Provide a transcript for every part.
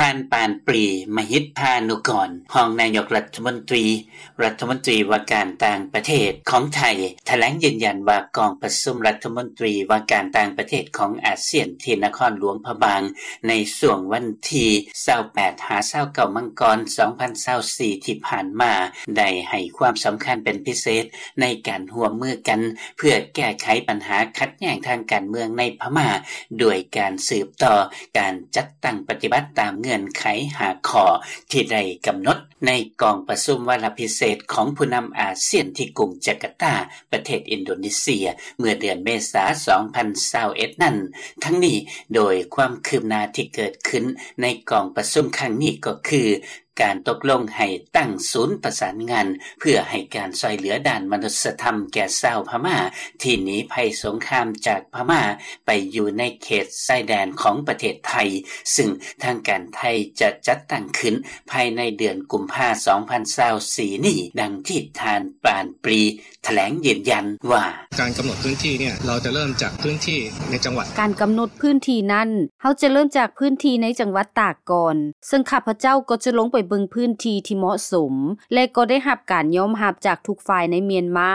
ທ່ານ ປານປຣີ ມະຫິດພານຸກອນ ຮອງນາຍົກລັດຖະມົນຕີ ລັດຖະມົນຕີວ່າການຕ່າງປະເທດຂອງໄທ ຖະແຫຼງຢືນຢັນວ່າກອງປະຊຸມລັດຖະມົນຕີວ່າການຕ່າງປະເທດຂອງອາຊຽນ ທີ່ນະຄອນຫຼວງພະບາງ ໃນຊ່ວງວັນທີຊາວແປດຫາຊາວເກົ້າມັງກອນ ສອງພັນຊາວສີ່ ທີ່ຜ່ານມາ ໄດ້ໃຫ້ຄວາມສຳຄັນເປັນພິເສດ ໃນການຮ່ວມມືກັນ ເພື່ອແກ້ໄຂບັນຫາຂັດແຍ່ງທາງການເມືອງໃນພະມ້າ ດ້ວຍການສືບຕໍ່ການຈັດຕັ້ງປະຕິບັດຕາມເງື່ອນໄຂຫ້າຂໍ້ ທີ່ໄດ້ກຳນົດໃນກອງປະຊຸມວາລະພິເສດຂອງຜູ້ນຳອາຊຽນ ທີ່ກຸງຈາກາຕາ ປະເທດອິນໂດເນເຊຍ ເມື່ອເດືອນເມສາ ສອງພັນຊາວເອັດ ນັ້ນ. ທັງນີ້, ໂດຍຄວາມຄືບໜ້າທີ່ເກີດຂຶ້ນໃນກອງປະຊຸມຄັ້ງນີ້ກໍຄື ການຕົກລົງໃຫ້ຕັ້ງສູນປະສານງານ ເພື່ອໃຫ້ການຊ່ວຍເຫຼືອດ້ານມະນຸດສະທຳແກ່ຊາວພະມ້າ ທີ່ໜີໄພສົງຄາມຈາກພະມ້າ ໄປຢູ່ໃນເຂດຊາຍແດນຂອງປະເທດໄທ, ຊຶ່ງທາງການໄທຈະຈັດຕັ້ງຂຶ້ນພາຍໃນເດືອນກຸມພາ ສອງພັນຊາວສີ່ ນີ້, ດັ່ງທີ່ທ່ານ ປານປຣີ ຖະແຫຼງຢືນຢັນວ່າ: ການກຳນົດພື້ນທີ່ເນຍ ເຮົາຈະເລີ່ມຈາກພື້ນທີ່ໃນຈັງຫວັດ. ການກຳນົດພື້ນທີ່ນັ້ນ ເຮົາຈະເລີ່ມຈາກພື້ນທີ່ໃນຈັງຫວັດຕາກກ່ອນ, ເຊິ່ງຂ້າພະເຈົ້າກໍຈະລົງໄປເບິ່ງພື້ນທີ່ທີ່ເໝາະສົມ ແລະ ກໍໄດ້ຮັບການຍອມຮັບຈາກທຸກຝ່າຍໃນມຽນມາ,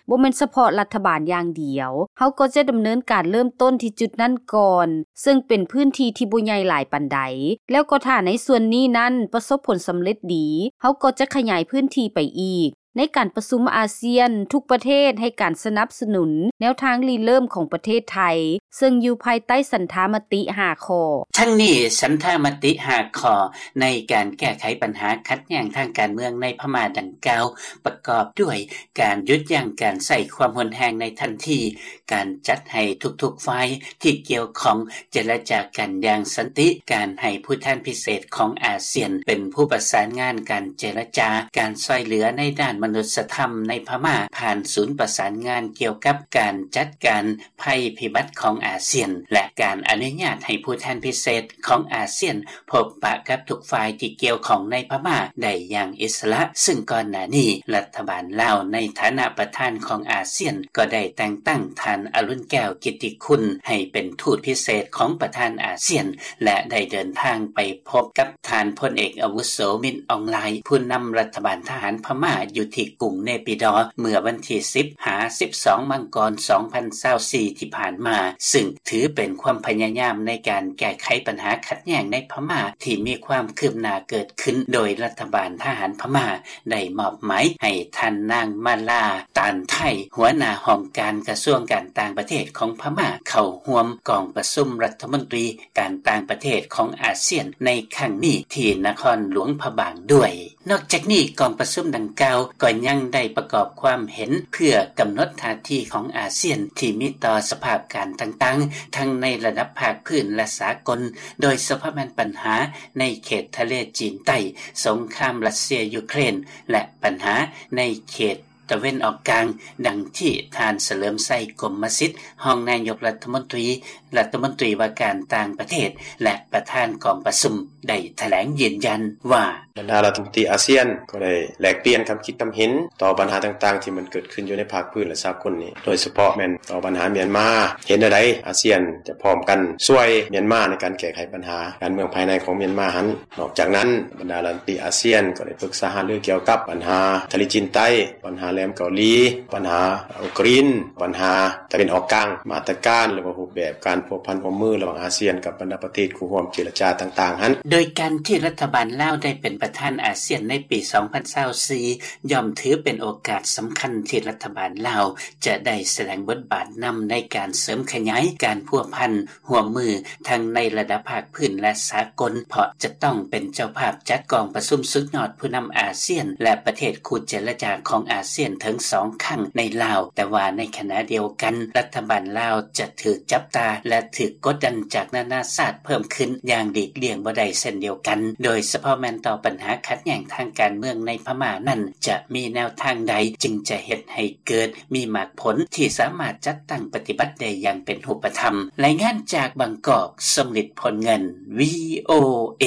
ບໍ່ແມ່ນສະເພາະລັດຖະບານຢ່າງດຽວ. ເຮົາກໍຈະດຳເນີນການເລີ່ມຕົ້ນທີ່ຈຸດນັ້ນກ່ອນ, ເຊິ່ງເປັນພື້ນທີ່ທີ່ບໍ່ໃຫຍ່ຫຼາຍປານໃດ, ແລ້ວກໍຖ້າໃນສ່ວນນີ້ນັ້ນປະສົບຜົນສຳເລັດດີ, ເຮົາກໍຈະຂະຫຍາຍພື້ນທີ່ໄປອີກ. ໃນການປະຊຸມອາຊຽນ, ທຸກປະເທດໃຫ້ການສະໜັບສະໜູນແນວທາງລິເລີ່ມຂອງປະເທດໄທ, ເຊິ່ງຢູ່ພາຍໃຕ້ສັນທາມະຕິຫ້າຂໍ້. ທັງນີ້, ສັນທາມະຕິຫ້າຂໍ້ໃນການແກ້ໄຂບັນຫາຂັດແຍ່ງທາງການເມືອງໃນພະມ້າດັ່ງກ່າວ ປະກອບດ້ວຍ ການຢຸດຢັ້ງການໃຊ້ຄວາມຮຸນແຮງໃນທັນທີ, ການຈັດໃຫ້ທຸກໆຝ່າຍທີ່ກ່ຽວຂ້ອງເຈລະຈາກັນຢ່າງສັນຕິ, ການໃຫ້ຜູ້ແທນພິເສດຂອງອາຊຽນເປັນຜູ້ປະສານງານການເຈລະຈາ, ການຊ່ວຍເຫຼືອໃນດ້ານມະນຸດສະທຳໃນພະມ້າ ຜ່ານສູນປະສານງານກ່ຽວກັບການຈັດການໄພພິບັດຂອງອາຊຽນ ແລະ ການອະນຸຍາດໃຫ້ຜູ້ແທນພິເສດຂອງອາຊຽນ ພົບປະກັບທຸກຝ່າຍທີ່ກ່ຽວຂ້ອງໃນພະມ້າໄດ້ຢ່າງອິດສະຫຼະ, ຊຶ່ງກ່ອນໜ້ານີ້ລັດຖະບານລາວໃນຖານະປະທານຂອງອາຊຽນ ກໍໄດ້ແຕ່ງຕັ້ງທ່ານ ອະລຸນແກ້ວ ກິດຕິຄຸນ ໃຫ້ເປັນທູດພິເສດຂອງປະທານອາຊຽນ ແລະ ໄດ້ເດີນທາງໄປພົບກັບທ່ານພົນເອກອາວຸໂສ ມິນ ອອງລາຍ ຜູ້ນຳລັດຖະບານທະຫານພະມ້າຢູ່ທີ່ກຸງເນປີດໍ ເມື່ອວັນທີສິບຫາສິບສອງມັງກອນ ສອງພັນຊາວສີ່ ທີ່ຜ່ານມາ, ຊຶ່ງ ຖືເປັນຄວາມພະຍາຍາມໃນການແກ້ໄຂບັນຫາຂັດແຍ່ງໃນພະມ້າທີ່ມີຄວາມຄືບໜ້າເກີດຂຶ້ນ, ໂດຍລັດຖະບານທະຫານພະມ້າໄດ້ມອບໝາຍໃຫ້ທ່ານນາງ ມາລາ ຕານໄທ ຫົວໜ້າຫ້ອງການກະຊວງການຕ່າງປະເທດຂອງພະມ້າ ເຂົ້າຮ່ວມກອງປະຊຸມລັດຖະມົນຕີການຕ່າງປະເທດຂອງອາຊຽນໃນຄັ້ງນີ້ທີ່ນະຄອນຫຼວງພະບາງດ້ວຍ. ນອກຈາກນີ້, ກອງປະຊຸມດັ່ງກ່າວກໍຍັງໄດ້ປະກອບຄວາມເຫັນເພື່ອກຳນົດທ່າທີຂອງອາຊຽນທີ່ມີຕໍ່ສະພາບການຕ່າງໆ ທັງໃນລະດັບພາກພື້ນ ແລະ ສາກົນ, ໂດຍສະເພາະແມ່ນບັນຫາໃນເຂດທະເລຈີນໃຕ້, ສົງຄາມຣັດເຊຍ-ຢູເຄຣນ ແລະ ບັນຫາໃນເຂດຕາເວັນອອກກາງ, ດັ່ງທີ່ທ່ານ ສະເຫຼີມໄຊ ກົມມະສິດ ຮອງນາຍົກລັດຖະມົນຕີ, ລັດຖະມົນຕີວ່າການຕ່າງປະເທດ ແລະ ປະທານກອງປະຊຸມ ໄດ້ຖະແຫຼງຢືນຢັນວ່າ: ບັນດາລັດຖະມົນຕີອາຊຽນກໍໄດ້ແລກປ່ຽນຄຳຄິດຄຳເຫັນຕໍ່ບັນຫາຕ່າງໆທີ່ມັນເກີດຂຶ້ນຢູ່ໃນພາກພື້ນ ແລະ ສາກົນນີ້, ໂດຍສະເພາະແມ່ນຕໍ່ບັນຫາມຽນມາ, ເຫັນແນວໃດອາຊຽນຈະພ້ອມກັນຊ່ວຍມຽນມາໃນການແກ້ໄຂບັນຫາການເມືອງພາຍໃນຂອງມຽນມາຫັ້ນ. ນອກຈາກນັ້ນ, ບັນດາລັດຖະມົນຕີອາຊຽນກໍໄດ້ປຶກສາຫາລືກ່ຽວກັບບັນຫາທະເລຈີນໃຕ້, ບັນຫາແຫຼມເກົາຫຼີ, ບັນຫາອຸກຣິນ, ບັນຫາຕາເວັນອອກກາງ, ມາດຕະການ ຫຼືວ່າຮູບແບບການພົວພັນຮ່ວມມືລະຫວ່າງອາຊຽນກັບບັນດາປະເທດຄູ່ຮ່ວມເຈລະຈາຕ່າງໆຫັ້ນ. ໂດຍການທີ່ລັດຖະບານລາວໄດ້ເປັນປະທານອາຊຽນໃນປີສອງພັນຊາວສີ່ ຍ່ອມຖືເປັນໂອກາດສຳຄັນທີ່ລັດຖະບານລາວຈະໄດ້ສະແດງບົດບາດນຳໃນການເສີມຂະຫຍາຍການພົວພັນ ຮ່ວມມືທັງໃນລະດັບພາກພື້ນ ແລະ ສາກົນ, ເພາະຈະຕ້ອງເປັນເຈົ້າພາບຈັດກອງປະຊຸມສຸດຍອດຜູ້ນຳອາຊຽນ ແລະ ປະເທດຄູ່ເຈລະຈາຂອງອາຊຽນເຖິງສອງຄັ້ງໃນລາວ, ແຕ່ວ່າໃນຂະນະດຽວກັນ ລັດຖະບານລາວຈະຖືກຈັບຕາ ແລະ ຖືກກົດດັນຈາກນານາຊາດເພີ່ມຂຶ້ນຢ່າງຫຼີກລ່ຽງບໍ່ໄດ້ເຊັ່ນດຽວກັນ, ໂດຍສະເພາະແມ່ນຕໍ່ບັນຫາຂັດແຍ່ງທາງການເມືອງໃນພະມ້ານັ້ນ ຈະມີແນວທາງໃດຈຶ່ງຈະເຮັດໃຫ້ເກີດ ມີໝາກຜົນທີ່ສາມາດຈັດຕັ້ງປະຕິບັດໄດ້ຢ່າງເປັນຮູບປະທຳ. ລາຍງານຈາກບາງກອກ, ສົມລິດ ພົນເງິນ, ວີໂອເອ.